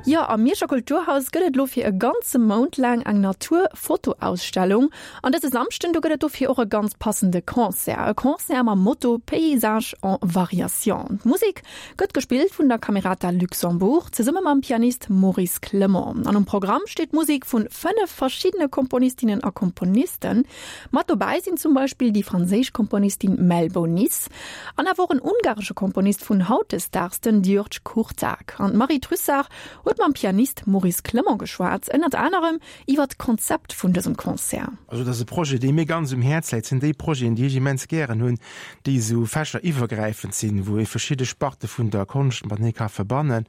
Jo, am Mierscher Kulturhaus gëtt et elo fir e ganze Mount laang eng Natur-Fotoausstellung. An dëse Samschden, do gëtt et dofir och e ganz passende Concert. E Concert mam Motto Paysages en variation. D'Musek gëtt gespillt vun der Camerata Luxembourg zesumme mam Pianist Maurice Clement. An um Programm steet Musek vun 5 verschiddene Komponistinnen a Komponisten. Mat dobäi sinn zum Beispill déi franséisch Komponistin Mel Bonis an awer och en ungaresche Komponist vun hautdesdaags, den György Kurtág. An d'Marie Trussart huet mam Pianist Maurice Clement geschwat, ënnert anerem iwwer d'Konzept vun dësem Concert. Also dat ass e Projet, dee mir ganz um Häerz läit. Et sinn déi Projeten, déi ech immens gären hunn, déi esou fächeriwwergräifend sinn, wou ee verschidde Sparte vun der Konscht matenee ka verbannen.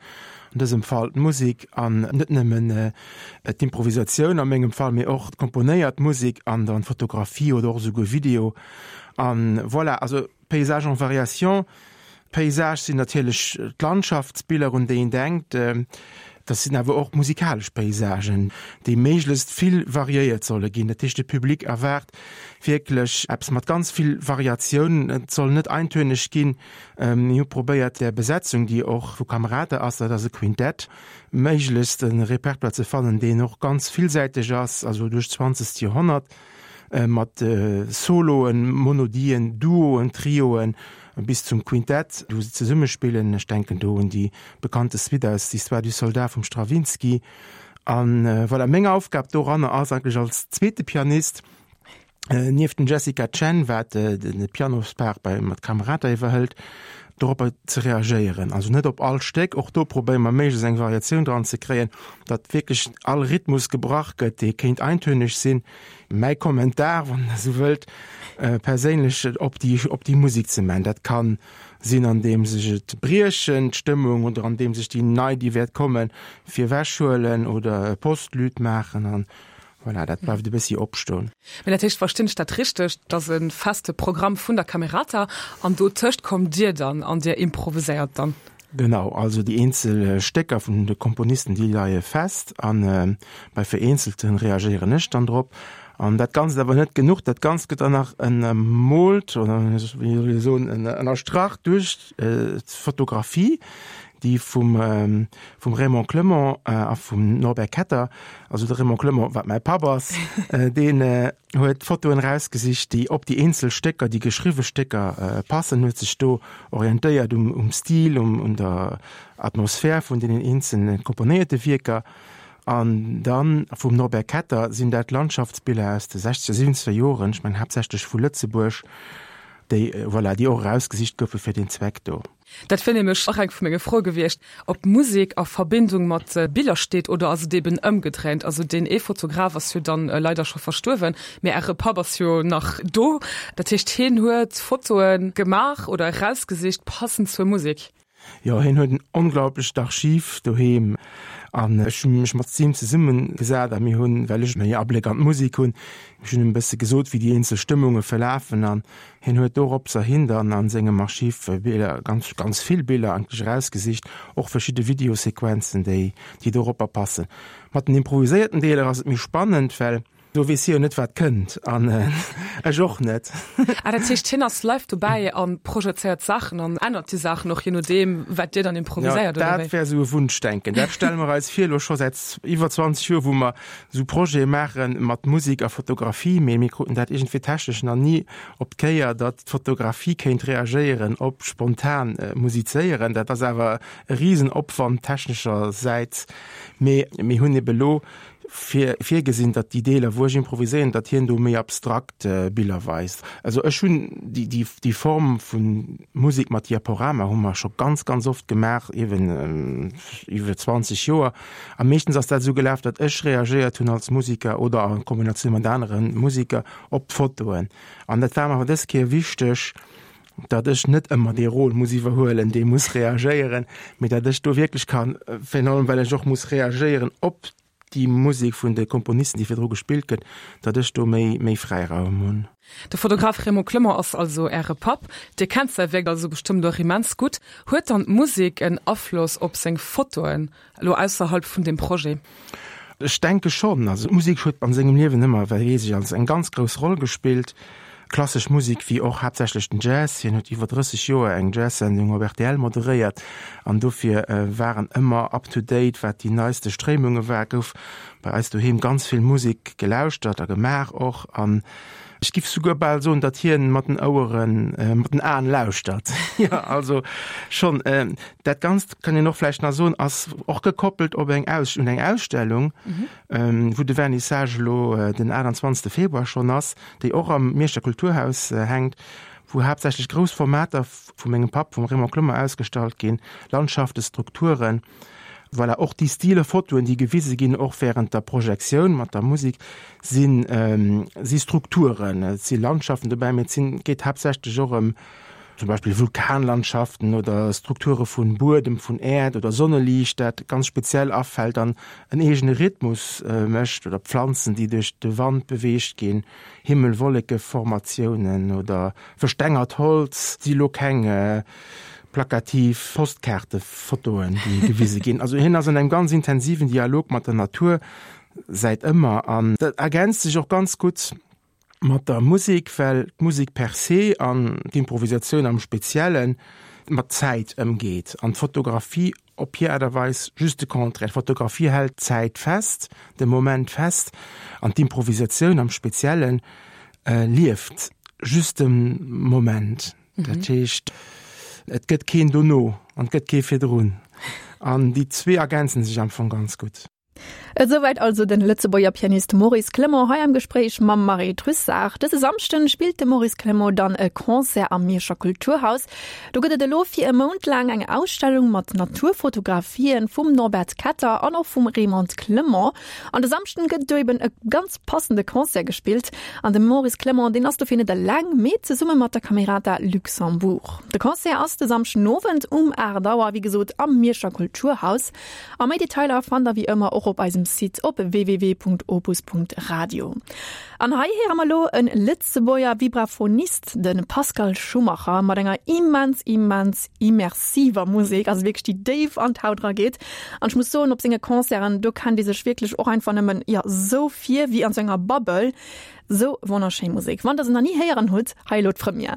An dësem Fall d'Musek an net nëmmen d'Improvisatioun a mengem Fall, mee och d'komponéiert Musek an dann d'Fotografie oder och esouguer Video. An voilà, also Paysages en variation. Paysage sinn natierlech d'Landschaftsbiller, un déi een denkt. Dat sinn awer och musikalesch Paysagen, déi méiglechst vill variéiert solle ginn. Dat heescht, de Public erwaart wierklech eppes mat ganz vill Variatioun. Et soll net eintönig ginn. Mir hu probéiert, där Besetzung, déi och vu Camerata ass, dat ass e Quintett, méiglechst e Repertoire ze fannen, deen och ganz villsäiteg ass, also duerch d'zwanzegt Joerhonnert, mat Soloen, Monodien, Duoen, Trioen bis zum Quintett, wou se zesumme spillen. Ech denken do un déi bekannte Suite aus L'Histoire du soldat vum Stravinsky. A voilà, meng Aufgab doranner ass eigentlech als zweete Pianist, Nieft dem Jessica Chen, wat de Pianospart bei mat Camerata iwwerhëlt, doropper ze reagéieren. Also net op all Stéck, och do probéiere mer méiglechst eng Variatioun dran ze kréien, datt wierklech all Rhythmus gebrach gëtt, dee kéint eintöneg sinn. Mäi Kommentar, wann Der esou wëllt, perséinlech op déi op déi Musek ze man. Dat ka sinn andeems ech et briechen, d'Stëmmung, oder andeems ech déi nei, déi wäert kommen, virwechhuelen oder e Postlude maachen an Voilà, dat bleift e bëssi opstoen. Mä dat heescht, verstinn ech dat richteg, dass e feste Programm vun der Camerata an dotëscht kommt Dir dann an Dir improviséiert dann? Genau, also déi eenzel Stécker vun de Komponisten, déi leie fest a bei vereenzelte reagéieren ech dann drop. An dat Ganzt awer net genuch, dat Ganzt gëtt dann nach ënnermoolt oder wéi soll ech soen, ënnerstrach duerch d'Fotografie, déi vum vum Raymond Clement a vum Norbert Ketter, also de Raymond Clement, wat mäi Papp ass, deen huet d'Fotoen erausgesicht, déi op déi eenzel Stécker, déi geschriwwe Stécker passen, huet sech do orientéiert um um Stil, um un der Atmosphär vun deenen eenzelne komponéierte Wierker. An dann vum Norbert Ketter sinn dat Landschaftsbiller aus de sechzeger, siwwenzeger Joren, ech mengen haaptsächlech vu Lëtzebuerg, déi, voilà, déi och erausgesicht goufe fir deen Zweck do. Dat wier nämlech och eng vu menge Froe gewiescht, ob Musek a Verbindung mat Biller steet oder ass et eben ëmgedréint? Also deen ee Fotograf ass jo dann leider scho verstuerwen, mä Äre Papp ass jo nach do. Dat heescht hien huet Fotoe gemaach oder erausgesicht passend zur Musek? Jo, hien huet en onglaublecht Archiv doheem an ech hu mech mat him zesummegesat a mir hunn, well ech méi Abléck an d'Musek hunn, ech hunn him e bësse gesot, wéi déi eenzel Stëmmunge verlafen an Hien huet doropser hin dann an sengem Archiv Biller, ganz, ganz vill Biller eigentlech erausgesicht, och verschidde Videosequenzen, déi, déi doropper passen. Mat den improviséierten Deeler ass et méi spannend, well do weess hie jo net, wat kënnt, an ech och net. Ah, dat heescht, hien ass live dobäi a projezéiert Saachen an ännert déi Saachen och, je nodeem, wat Dir dann improviséiert, oder wéi? Dat wär esou e Wunschdenken. Dat stelle mer eis vir, elo scho säit iwwer 20 Joer, wou mer esou Projete maache mat Musek a Fotografie, mee mir kruten dat iergendwéi technesch nach ni op d'Kéier, datt d'Fotografie kéint reagéieren op spontan Musizéieren. Dat ass awer e Risenopwand techneschersäits, mee mir hunn ebe lo fir virgesinn, datt déi Deeler, wou ech improviséieren, datt hien do méi abstrakt Biller weist. Also ech hunn déi, déi, déi Form vu Musek mat Diaporama hu mer scho ganz, ganz oft gemaach, eeben iwwer 20 Joer. A meeschtens ass dat esou gelaf, datt ech reagéiert hunn als Musiker oder a Kombinatioun mat anere Musiker op d'Fotoen. An dat war mer awer dës Kéier wichteg, datt ech net ëmmer dee Rôle muss iwwerhuelen, dee muss reagéieren, mee datt ech do wierklech kann, virun allem well ech och muss reagéieren op déi Musek vun de Komponisten, déi virdru gespillt gëtt, datt ech do méi, méi Fräiraum hunn. De Fotograf Raymond Clement ass also Äre Papp. Dir kennt säi Wierk also bestëmmt och immens gutt. Huet dann d'Musek en Afloss op seng Fotoen, elo ausserhalb vun deem Projet? Ech denke schonn. Also d'Musek huet an sengem Liewen ëmmer, well weess ech, als eng ganz grouss Roll gespillt. Klassesch Musek wéi och haaptsächlech den Jazz. Hien huet iwwer 30 Joer eng Jazz-Sendung op rtl moderéiert an dofir war en ëmmer up to date wat déi neiste Stréimunge war. Gouf bei eis doheem ganz vill Musek gelauschtert a gemaach och an ech giff souguer bal soen, datt hien mat den Oueren, mat den Aen lauschtert. Jo, also schonn. Dat Ganzt kann een och vläicht nach soen, ass och gekoppelt op eng Aus, un eng Ausstellung, wou de Vernissage elo den 28 Februar schonn ass, déi och am Mierscher Kulturhaus hänkt, wou haaptsächlech grouss Formater vu mengem Papp, vum Raymond Clement, ausgestallt ginn, Landschaften, Strukturen. Voilà, och déi Stile Fotoen, déi gewise ginn, och während der Projektioun mat der Musek, sinn, si Strukturen. Et si Landschaften dobäi, mee et sinn, geet haaptsächlech och ëm zum Beispill Vulkanlandschaften oder Strukture vun Buedem, vun Äerd oder Sonneliicht, dat ganz speziell afält an en eegene Rhythmus mécht, oder Pflanzen, déi duerch de Wand beweegt ginn, Himmel-Wolleke-Formatiounen oder verstengert Holz, si lo keng plakativ Postkaartefotoen, déi gewise ginn. Also hien ass an engem ganz intensiven Dialog mat der Natur säit ëmmer an dat ergänzt sech och ganz gutt mat der Musek, well d'Musek per se an d'Improvisatioun am Spezielle mat Zäit ëmgeet an d'Fotografie op hir Aart a Weis just de Contraire. D'Fotografie hält d'Zäit fest, de Moment fest an d'Improvisatioun am Spezielle lieft just de Moment. Dat heescht, et gëtt keen dono an et gëtt kee virdrun an déi zwee ergänze sech am Fong ganz gutt. Esouwäit also den Lëtzebuerger Pianist Maurice Clement hei am Gespréich mam Marie Trussart. Dëse Samschden spillt de Maurice Clement dann e Concert am Mierscher Kulturhaus. Do gëtt et elo fir e Mount laang eng Ausstellung mat Naturfotografien vum Norbert Ketter an och vum Raymond Clement. An de Samschden gëtt do eben e ganz passende Concert gespillt. An de Maurice Clement, deen ass dofir net eleng, mee zesumme mat der Camerata Luxembourg. De Concert ass de Samschden Owend um 8 Auer, wéi gesot am Mierscher Kulturhaus. A méi Detailer fannt der wéi ëmmer och op eisem Site op www.opus.radio. An hei héiere mer elo e Lëtzebuerger Vibraphonist, de Pascal Schumacher, mat enger immens, immens immersiver Musek, also wierklech déi déif an d'Haut erageet. An ech muss soen, op senge Concerten, do kennt ee sech wierklech och einfach nëmmen, jo, sou vir wéi an sou enger Bubble. Sou wonnerschéi Musek. Wann der se nach ni héieren hutt, hei elo d'Première.